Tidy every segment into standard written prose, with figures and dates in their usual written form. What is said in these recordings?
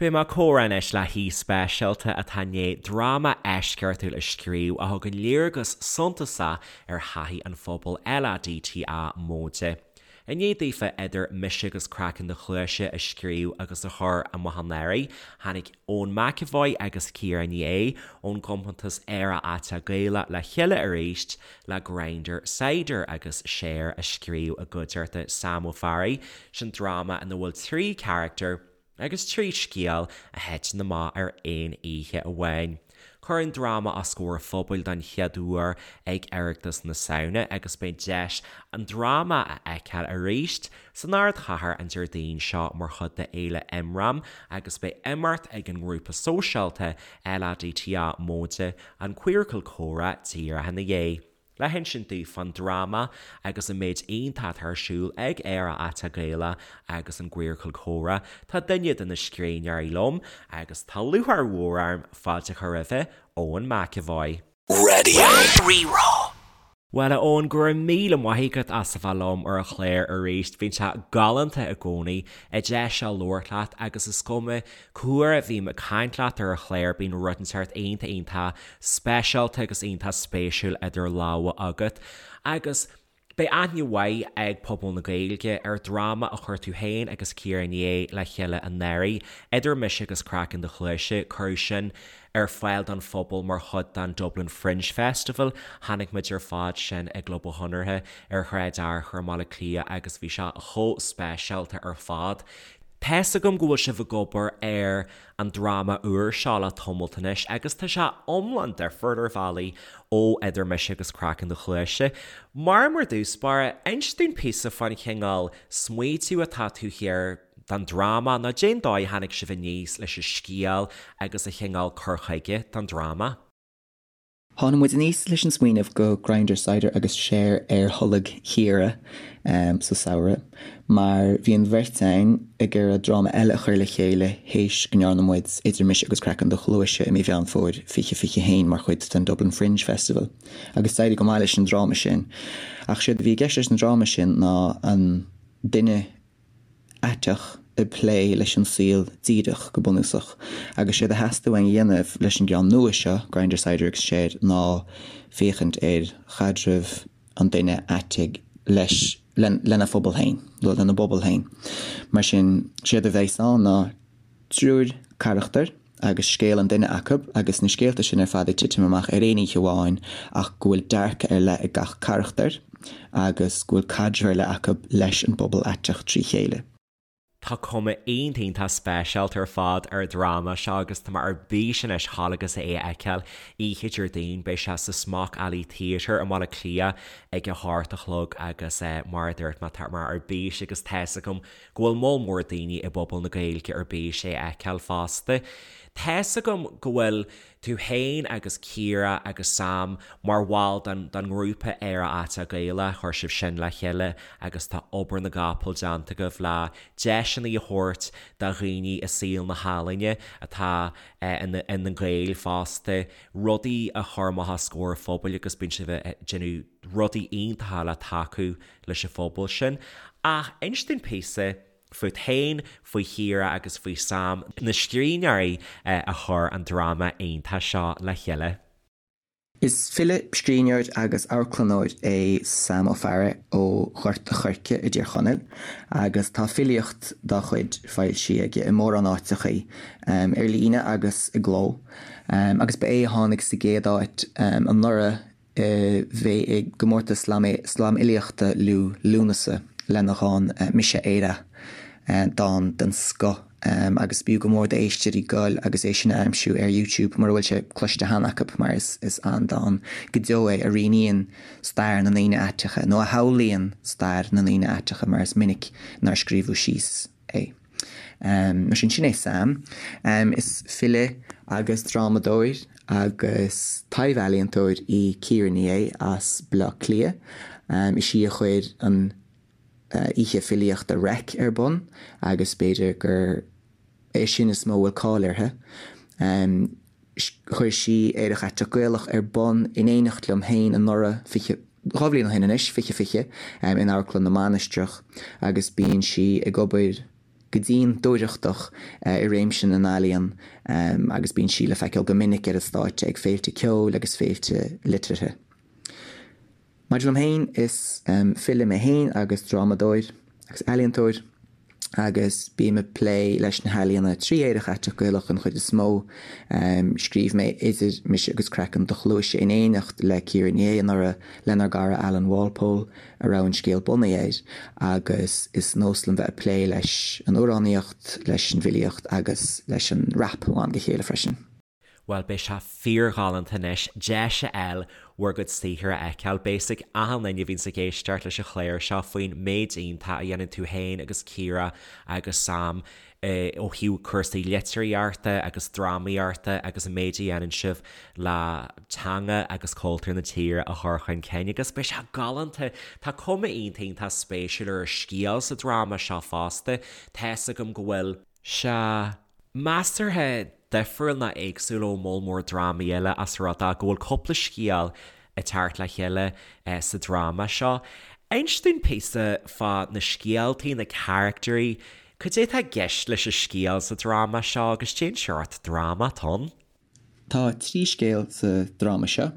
Beidh mé ag comhrá anois le haoi speisialta atá i ndiaidh dráma eisceachtúil a scríobh a thugann léargas suntasach ar thaithí an phobail LADTA móide. I ndiaidh daofa Idir Mise agus Craiceann do Chluaise a scríobh agus a chur amach anuraidh, tháinig Eoin McEvoy agus Ciara Ní É ón gcompántas Aerach Aiteach Gaelach le chéile arís le Grindr, Cider agus Share a scríobh i gcuideachta Sam Ó Fearraigh, sin dráma ina bhfuil 3 charachtar, agus 3 scéal a thiteann amach ar aon oíche amháin. Cuireadh an dráma os comhair an phobail don chéad uair ag Oireachtas na Samhna agus beidh deis an dráma a fheiceáil arís san ardchathair an Déardaoin seo mar chuid de Fhéile Imram agus beidh imeacht ag an ngrúpa sóisialta LADTA móide an Queercal Comhrá díreach ina dhiaidh. Le hinsint dúinn fán dráma agus an méid iontach atá ar siúl ag Aerach Aiteach Gaelach agus an gQueercal Comhrá, tá duine de na scríbhneoirí liom agus tá lúcháir mhór orm fáilte a chur roimhe, Eoin McEvoy. Radio Rí-Rá. Bhuel, a Eoin, go raibh míle maith agat as a bheith liom ar an chlár arís. Bíonn sé galánta i gcónaí an deis seo labhairt leat agus is cuma Cá huair a bhím ag caint leat ar an chlár bíonn rud inteacht iontach iontach speisialta agus iontach spéisiúil idir lámha agat. Agus beidh aithne mhaith ag pobal na Gaeilge ar dhráma a chuir tú féin agus Ciara Ní É le chéile anuraidh, Idir Mise agus Craiceann do Chluaise, cuireadh sin ar fáil don phobal mar chuid den Dublin Fringe Festival. Chonaic muid ar fad sin i gClub an Chonartha ar Shráid Fhearchair i mBaile Átha Cliath agus bhí sé chomh speisialta ar fad. Tá's agam go bhfuil sibh ag obair ar an dráma úr seo le tamalt anois agus tá sé iomlán difriúil ar bhealaí ó Idir Mise agus Craiceann do Chluaise. Mar mar dtús báire, inis dúinn píosa fán chineál smaoitiú atá taobh thiar den dráma nó cén dóigh a tháinig sibh aníos leis an scéal agus an chineál cur chuige don dráma. Tháinig muid aníos leis an smaoineamh go Grindr, Cider agus Share ar tholg Chiara sa samhradh mar bhí an bheirt againn ag iarraidh dráma eile a chur le chéile théis go ndearna muid Idir Mise agus Craiceann do Chluaise i mí Mheán Fómhair 2021 mar chuid den Dublin Fringe Festival agus d'éirigh go maith leis an dráma sin. Ach séard a bhí i gceist leis an dráma sin ná an duine aiteach ag plé leis an saol díreach, go bunúsach. Agus séard a theastaigh uainn a dhéanamh leis an gceann nua seo, Grindr, Cider agus Share, ná féachaint ar chaidreamh an duine aitigh leis, lena phobal féin, nó lena bpobal féin. Mar sin, séard a bheas ann ná triúr carachtar, agus scéal an duine acu, agus na scéalta sin ar fad ag titim amach ar aon oíche amháin ach go bhfuil dearcadh ar leith ag gach carachtar agus go bhfuil caidreamh ar leith acu leis an bpobal aiteach trí chéile. Tá cuma iontach iontach speisialta ar fad ar an dráma seo agus tá mé ar bís anois dhul agus é a fheiceáil oíche Déardaoin. Beidh sé sa Smock Alley Theatre i mBaile Átha Cliath ag a hocht a chlog agus mar a dúirt mé tá mé ar bís agus tá's agam go bhfuil moll mór daoine i bpobal na Gaeilge ar bís é a fheiceáil fosta. Tá's agam go bhfuil tú féin agus Ciara agus Sam mar bhall den den ngrúpa Aerach Aiteach Gaelach, chuir sibh sin le chéile agus tá obair na gcapall déanta agaibh le deiseanna a thabhairt do dhaoine i saol na healaíne atá ina ina nGaeil fosta, rudaí a chur amach os comhair an phobail agus bíonn sibh ag déanamh rudaí iontacha le tacú leis an phobal sin. Ach inis dúinn píosa fút féin, faoi Chiara agus faoi Sam, na scríbhneoirí a chuir an dráma iontach seo le chéile. Is file, scríbhneoir agus amharclannóir é Sam Ó Fearraigh ó Ghort a' Choirce i dTír Chonaill agus tá filíocht dá chuid foilsithe aige i mórán áiteachaí, ar líne agus i gcló. Agus ba é a tháinig sa gcéad áit anuraidh a bhí i gcomórtas slamfhilíochta Liú Lúnasa lena dhán 'Mise Éire', dán den scoth agus b'fhiú go mór d'éisteoirí goil agus é sin a aimsiú ar YouTube mura bhfuil sé cloiste cheana acu mar is an-dán go deo é a rianaíonn stair na ndaoine aiteacha, nó a shamhlaíonn stair na ndaoine aiteacha mar is minic nár scríobhadh síos é. Mar sin, sin é Sam. Is file agus drámadóir agus taibh-ealaíontóir í Ciara Ní É as Baile Átha Cliath. Is í a chuir an oíche filíochta Reic ar bun agus b'fhéidir gur é sin is mó a bhfuil cáil uirthi. Chuir sí Aerach Aiteach Gaelach ar bun in éineacht liom féin anuraidh, 20, 2 bhliain ó shin anois, 2020, in Amharclann na Mainistreach agus bíonn sí ag obair. go dian dúthrachtach i réimse na n-ealaíon agus bíonn sí le feiceáil go minic ar an stáitse ag féilte ceoil agus féilte liteartha. Maidir liom féin, is file mé féin agus drámadóir agus ealaíontóir agus bím ag plé leis na healaíona trí Aerach Aiteach Gaelach den chuid is mó. Scríobh mé Idir Mise agus Craiceann do Chluaise in éineacht le Ciara Ní É anuraidh lenár gcara Alan Walpole a raibh an scéal bunaithe air agus is nós liom bheith ag plé leis an amhránaíocht, leis an bhfilíocht agus leis an rap ó am go chéile freisin. Bhuel, beidh sé fíorghalánta anois deis a fháil bhur gcuid saothair a fheiceáil. Beidh a fhios ag achan duine a bhíonns ag éisteacht leis an chlár seo faoin méid iontach a dhéanann tú féin agus Ciara agus Sam ó thaobh cúrsaí litríochta agus drámaíochta agus an méid a dhéanann sibh le teanga agus cultúr na tíre a chur chun cinn agus beidh sé galánta. Tá cuma iontach iontach spéisiúil ar an scéal sa dráma seo fosta. Tá fhios agam go bhfuil sé measartha difriúil nó éagsúil ó moll mór drámaí eile as rud é go bhfuil cúpla scéal ag teacht le chéile sa dráma seo. Inis dúinn píosa fá na scéaltaí, na caractairí, cad é atá i gceist leis an scéal sa dráma seo agus cén seort dráma atá ann? Tá trí scéal sa dráma seo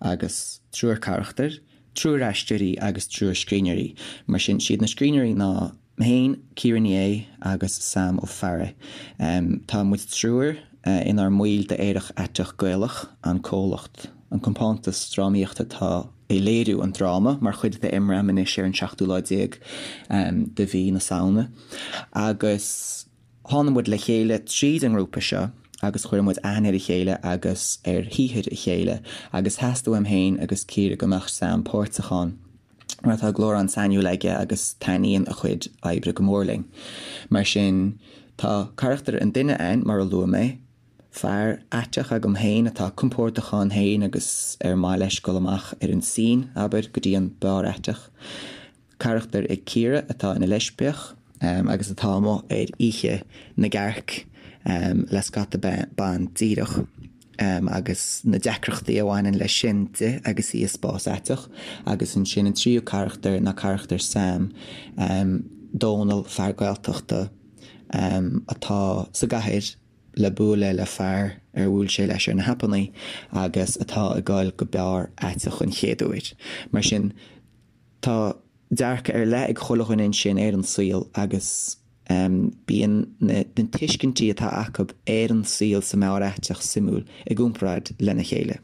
agus triúr carachtar, triúr aisteoirí agus triúr scríbhneoirí. Mar sin, siad na scríbhneoirí ná mé féin, Ciara Ní É agus Sam Ó Fearraigh. Tá muid triúr inár mbaill d'Aerach Aiteach Gaelach, an comhlacht, an compántas drámaíochta atá ag léiriú an dráma mar chuid de imram anois ar an seachtú lá déag de mhí na Samhna. Agus. Tháinig muid le chéile tríd an ngrúpa seo agus chuir muid aithne ar a chéile agus ar shaothar a chéile agus theastaigh uaim féin agus Ciara go mbeadh Sam páirteach ann mar tá glór an-sainiúil aige agus taitníonn a chuid oibre go mór linn. Mar sin, tá carachtar an duine ann, mar a luaigh mé, fear aiteach agam féin atá compordach ann féin agus ar maith leis dul amach ar an scene, abair, go dtí an beár aiteach. Carachtar ag Ciara atá ina leispiach agus atá amuigh ar oíche na gcearc le scata ban díreach agus na deacrachtaí a bhaineann leis sin di agus í i spás aiteach. Agus ansin an tríú carachtar ná carachtar Sam, Dónal, fear Gaeltachta atá sa gcathair le bualadh le fear ar bhuail sé leis ar na haipeanna agus atá ag dul go beár aiteach an chéad uair. Mar sin. Tá dearcadh ar leith ag chuile dhuine ansin ar an saol agus bíonn na tuiscintí atá acu ar an saol sa mbeár aiteach suimiúil i gcomparáid lena chéile.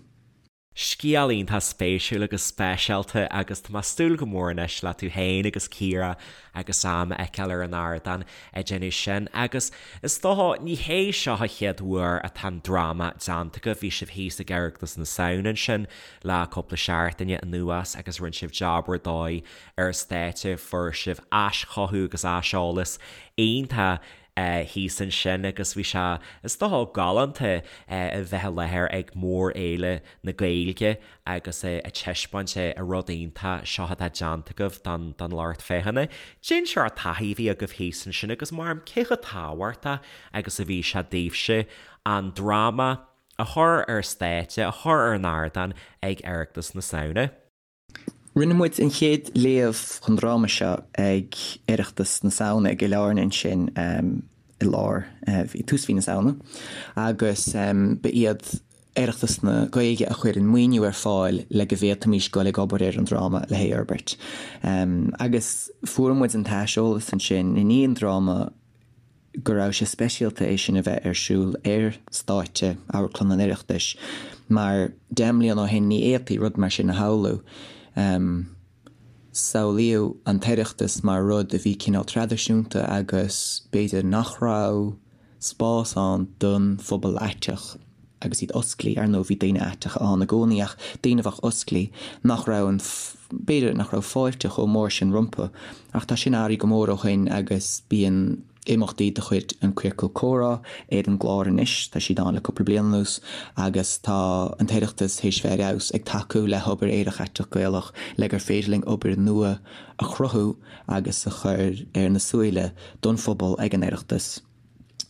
Scéal iontach spéisiúil agus speisialta agus tá mé ag súil go mór anois le tú féin agus Ciara agus Sam a fheiceáil ar an ardán ag déanamh sin agus is dócha ní hé seo an chéad uair atá an dráma déanta agaibh, bhí sibh thíos ag Oireachtas na Samhna ansin le cúpla seachtaine anuas agus rinne sibh jab ar dóigh ar an stáitse, fuair sibh aischothú agus aiseolas iontach thíos ansin agus bhí sé, is dócha, galánta a bheith i láthair ag mórfhéile na Gaeilge agus ag taispeáint an rud iontach seo atá déanta agaibh don lucht féachana. Cén seort taithí a bhí agaibh thíos ansin agus mar cé chomh tábhachtach agus a bhí sé daoibhse an dráma a chur ar stáitse, a chur ar an ardán ag Oireachtas na Samhna. Rinne muid an chéad léamh den dráma seo ag Oireachtas na Samhna i gCill Airne ansin i lár, i tús mhí na Samhna agus ba iad Oireachtas na Gaeilge a chuir an maoiniú ar fáil le go bhféadfaimis dul ag obair ar an dráma le hé a fhorbairt. Agus fuair muid an t-aiseolas ansin i ndiaidh an dráma, go raibh sé speisialta é sin a bheith ar siúl ar stáitse Amharclann an Oireachtais mar 10 mbliana ó shin ní fhéadfaí rud mar sin a shamhlú. Samhlaíodh an tOireachtas mar rud a bhí cineál traidisiúnta agus b'fhéidir nach raibh spás ann don phobal aiteach agus iad osclaí. Ar ndóigh bhí daoine aiteacha ann i gcónaí ach daoine a bheadh osclaí nach raibh an, b'fhéidir nach raibh fáilte chomh mór sin rompu. Ach tá sin athraithe go mór ó shin agus bíonn imeachtaí de chuid an Ciorcal Comhrá ar an gclár anois, tá siad ann le cúpla bliain anuas, agus tá an tOireachtas théis bheith ar fheabhas ag tacú le hobair Aerach Aiteach Gaelach le gur féidir linn obair nua a chruthú agus a chur ar na súile don phobal ag an Oireachtas.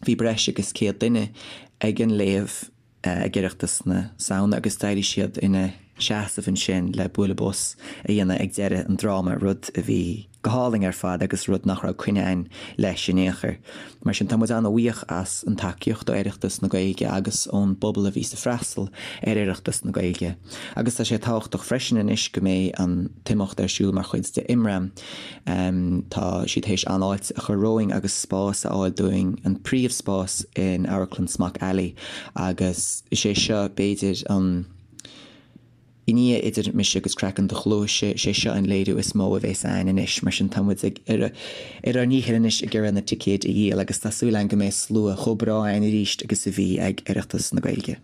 Bhí breis agus 100 duine ag an léamh ag Oireachtas na Samhna agus d'éirigh siad ina seasamh ansin le bualadh bos a dhéanamh ag deireadh an dráma, rud a bhí. go hálainn ar fad agus rud nach raibh coinne againn leis in aon chor. Mar sin tá muid an-bhuíoch as an tacaíocht ó Oireachtas na Gaeilge agus ón bpobal a bhí ag freastal ar Oireachtas na Gaeilge. Agus tá sé tábhachtach freisin anois go mbeidh an t-imeacht ar siúl mar chuid de Imram. Tá siad théis an-fháilte a chur romhainn agus spás a fháil dúinn, an príomhspás in Amharclann Smock Alley agus is é seo b'fhéidir an I ndiaidh Idir Mise agus Craiceann Do Chluaise, is é seo an léiriú is mó a bhéas a'ainn anois, mar sin tá muid ag ar ár ndícheall anois ag iarraidh na ticéid a dhíol agus tá súil a'ainn go mbeidh slua chomh breá a'ainn arís agus a bhí ag Oireachtas na Gaeilge.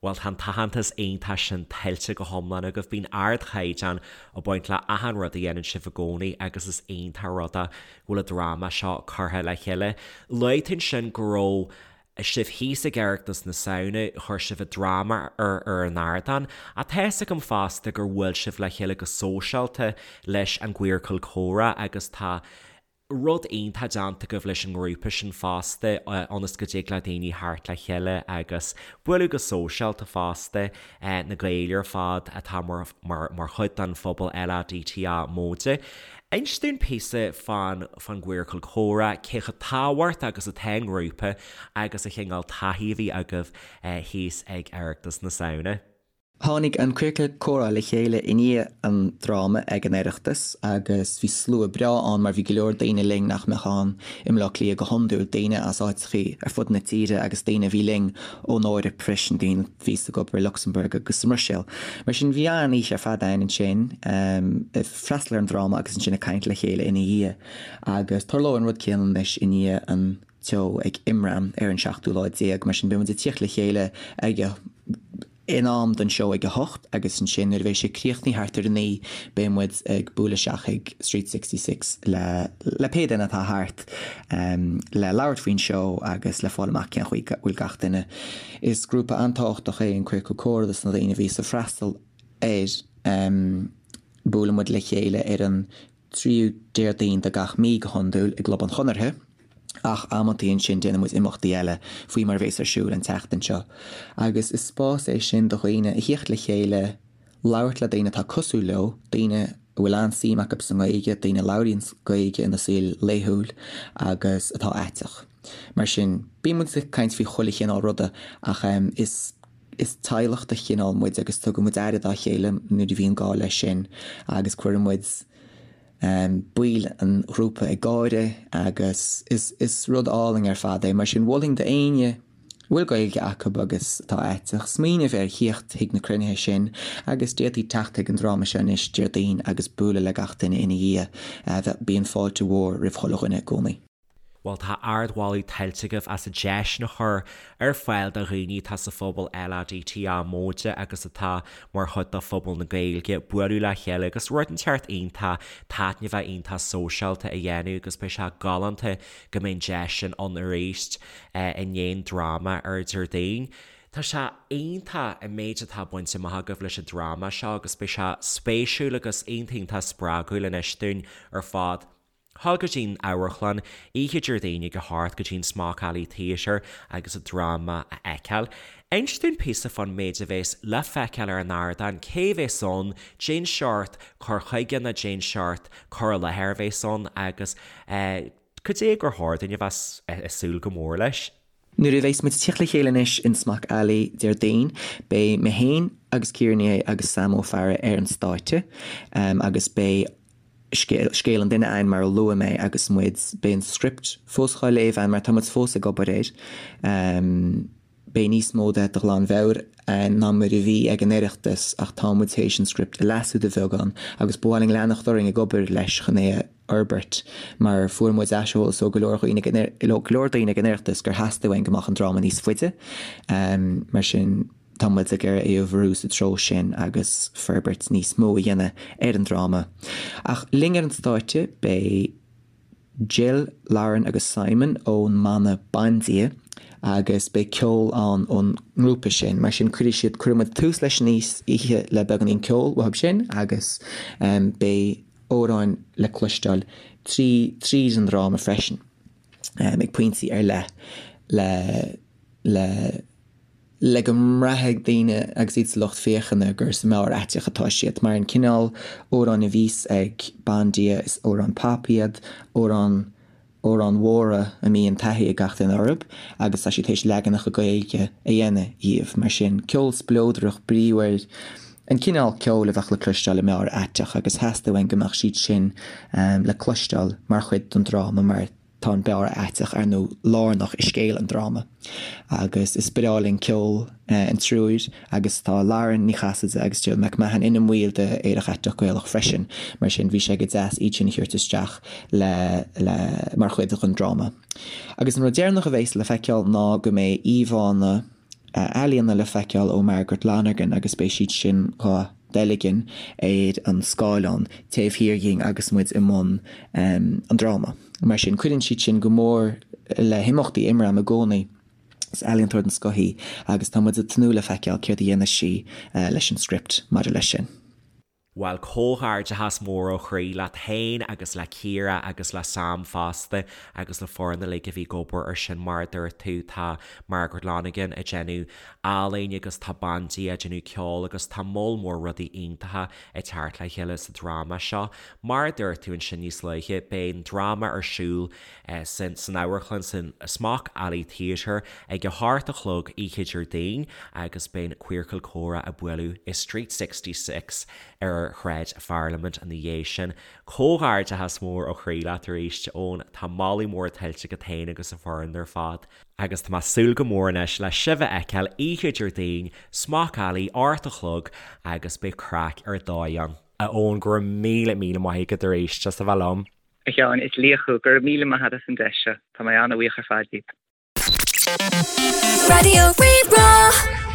Bhuel, tá an t-aitheantas iontach sin tuillte go hiomlán agaibh. Bíonn ardchaighdeán ag baint le achan rud a dhéanann sibh i gcónaí agus is iontach an rud é go bhfuil an dráma seo curtha le chéile. Luaigh tú ansin go raibh sibh thíos ag Oireachtas na Samhna, chuir sibh an dráma ar ar an ardán. Ach tá fhios agam fosta gur bhuail sibh le chéile go sóisialta leis an gQueercal Comhrá agus tá rud iontach déanta agaibh leis an ngrúpa sin fosta ionas go dtig le daoine theacht le chéile agus bualadh go sóisialta fosta, na Gaeil ar fad atá mar mar chuid den phobal LADTA móide. Inis dúinn píosa fán fán gQueercal Comhrá, cé chomh tábhachtach agus atá an grúpa agus an chineál taithí a bhí agaibh thíos ag Oireachtas na Samhna. Tháinig an Queercal Comhrá le chéile i ndiaidh an dráma ag an Oireachtas agus bhí slua breá ann mar bhí go leor daoine linn nach mbeadh ann i mBleá Cliath go hiondúil, daoine as áiteachaí ar fud na tíre agus daoine a bhí linn ón Eoraip freisin, daoine a bhí ag obair i Lucsamburg agus sa mBruiséil. Mar sin bhí an-oíche ar fad ann ansin, ag freastal ar an dráma agus ansin ag caint le chéile ina dhiaidh. Agus tarlóidh an rud céanna anois i ndiaidh an tseó ag Imram ar an seachtú lá déag, mar sin beidh muid ag tíocht le chéile ag in am don seó ag a hocht agus ansin nuair a bheidh sé críochnaithe thart ar a naoi beidh muid ag bualadh isteach ag Street 66 le le pé duine atá thart le labhairt faoin seó agus le fáil amach cén chaoi a bhfuil gach duine. Is grúpa an-tábhachtach é an Queercal Comhrá dos na daoine a bhíos ag freastal air. Buaileann muid le chéile ar an tríú Déardaoin de gach mí go hiondúil i gClub an Chonartha, ach amantaí ansin déanann muid imeachtaí eile faoi mar a bhéas ar siúl an tseachtain seo. Agus is spás é sin do dhaoine a thíocht le chéile, labhairt le daoine atá cosúil leo, daoine a bhfuil an-suim acu sa nGaeilge, daoine a labhraíonn Gaeilge ina saol laethúil agus atá aiteach. Mar sin, bíonn muid ag caint faoi chuile chineál ruda ach is. Is teaghlach de chineál muid agus tugann muid aire dá chéile nuair a bhíonn gá leis sin agus cuireann muid baill an ghrúpa ag gáire agus is is rud álainn ar fad é. Mar sin mholfainn d'éinne a bhfuil Gaeilge acu agus atá aiteach smaoineamh ar thíocht chuig na cruinnithe sin agus d'fhéadfaí teacht chuig an dráma seo anois Déardaoin agus bualadh le gach duine ina dhiaidh. Bíonn fáilte mhór roimh chuile dhuine i gcónaí. Bhuel, tá ardmholadh tuillte agaibh as an deis sin a chur ar fáil do dhaoine atá sa phobal LADTA móide agus atá mar chuid de phobal na Gaeilge bualadh le chéile agus rud inteacht iontach taitneamhach iontach sóisialta a dhéanamh agus beidh sé galánta go mbeidh an deis sin ann arís i ndiaidh an dráma ar Déardaoin. Tá sé iontach an méid atá bainte amach agaibh leis an dráma seo agus beidh sé spéisiúil agus iontach iontach spreagúil anois dúinn ar fad. Dhul go dtí'n amharclann oíche Déardaoin ag a hocht go dtí'n Smock Alley Theatre agus an dráma a fheiceáil. Inis dúinn píosa fán méid a bhéas le feiceáil ar an ardán, cé bhéas ann, cén seort cur chuige nó cén seort cur i láthair a bhéas ann agus cad é gur chóir dúinn a bheith ag súil go mór leis. Nuair a bheas muid ag tíocht le chéile anois in Smock Alley Déardaoin, beidh mé féin agus Ciara Ní É agus Sam Ó Fearraigh ar an stáitse agus beidh scéal an duine a'ainn mar a luaigh mé agus muid, beidh an script fós dhá léamh a'ainn mar tá muid fós ag obair air. Beidh níos mó de de ghlanmheabhair a'ainn ná mar a bhí ag an Oireachtas ach tá muid théis an script a leasú de bheagán agus ba mhaith linn leanacht orainn ag obair leis chun é a fhorbairt mar fuair muid aiseolas ó go leor dhaoine ag an ó go leor daoine ag an Oireachtas gur theastaigh uainn go mbeadh an dráma níos faide. Mar sin. Tá muid ag iarraidh é a bhrú sa treo sin agus forbairt níos mó a dhéanamh ar an dráma. Ach linn ar an stáitse beidh Jill, Lauren agus Simon ón mbanna Bandia agus beidh ceol ann ón ngrúpa sin. Mar sin cuirfidh siad, cuirfidh muid tús leis an oíche le beagáinín ceoil uathu sin agus beidh amhráin le cloisteáil trí tríd an dráma freisin ag pointí ar leith le le. le go mbraithfidh daoine agus iad sa lucht féachana gur sa mbeár aiteach atá siad, mar an cineál amhráin a bhíos ag Bandia, is amhráin pop iad, amhráin, amhráin mhóra a mbíonn taithí ag gach duine orthu agus tá siad théis leaganacha Gaeilge a dhéanamh dhíobh. Mar sin, ceol spleodrach, bríomhar, an cineál ceoil a bheadh le cloisteáil i mbeár aiteach agus theastaigh uainn go mbeadh siad sin le cloisteáil mar chuid den dráma mar Tá an beár aiteach, ar ndóigh, lárnach i scéal an dráma agus is breá linn ceol an triúir agus tá Lauren Ní Chasaide agus Jill McMahon ina mbaill de Aerach Aiteach Gaelach freisin, mar sin bhí sé go deas iad sin a thabhairt isteach le le mar chuid den dráma. Agus an rud deireanach a bheas le feiceáil ná go mbeidh íomhánna. ealaíona le feiceáil ó Margaret Lonergan agus beidh siad sin dhá dteilgean ar an scáileán taobh thiar dhinn agus muid i mbun an dráma. Mar sin, cuireann siad sin go mór le himeachtaí Imram i gcónaí. Is ealaíontóir den scoth í agus tá muid ag tnúth le feiceáil céard a dhéanfas sí leis an script maidir leis sin. Bhuel, comhghairdeachas mór ó chroí leat féin agus le Ciara agus le Sam fosta agus le foireann uilig a bhí ag obair ar sin mar a dúirt tú tá Margaret Lonergan ag déanamh ealaín agus tá Bandia ag déanamh ceoil agus tá moll mór rudaí iontacha ag teacht le chéile sa dráma seo. Mar a dúirt tú ansin níos luaithe beidh an dráma ar siúl san san amharclann san Smock Alley Theatre ag a hocht a chlog oíche Déardaoin agus beidh an Queercal Comhrá ag bualadh i Street 66 ar Shráid Pharlaimint ina dhiaidh sin. Comhghairdeachas mór ó chroí leat arís, Eoin. Tá moladh mór tuillte agat féin agus an foireann ar fad. Agus tá mé ag súil go mór anois le sibh a fheiceáil oíche Déardaoin, Smock Alley, 8 a chlog agus beidh craic ar dóigh ann. A Eoin, go raibh míle míle maith agat arís as a bheith liom. A Sheáin, is laoch thú. Go raibh míle maith agat as an deis seo. Tá mé an-bhuíoch ar fad díot. Raidió Rí-Rá.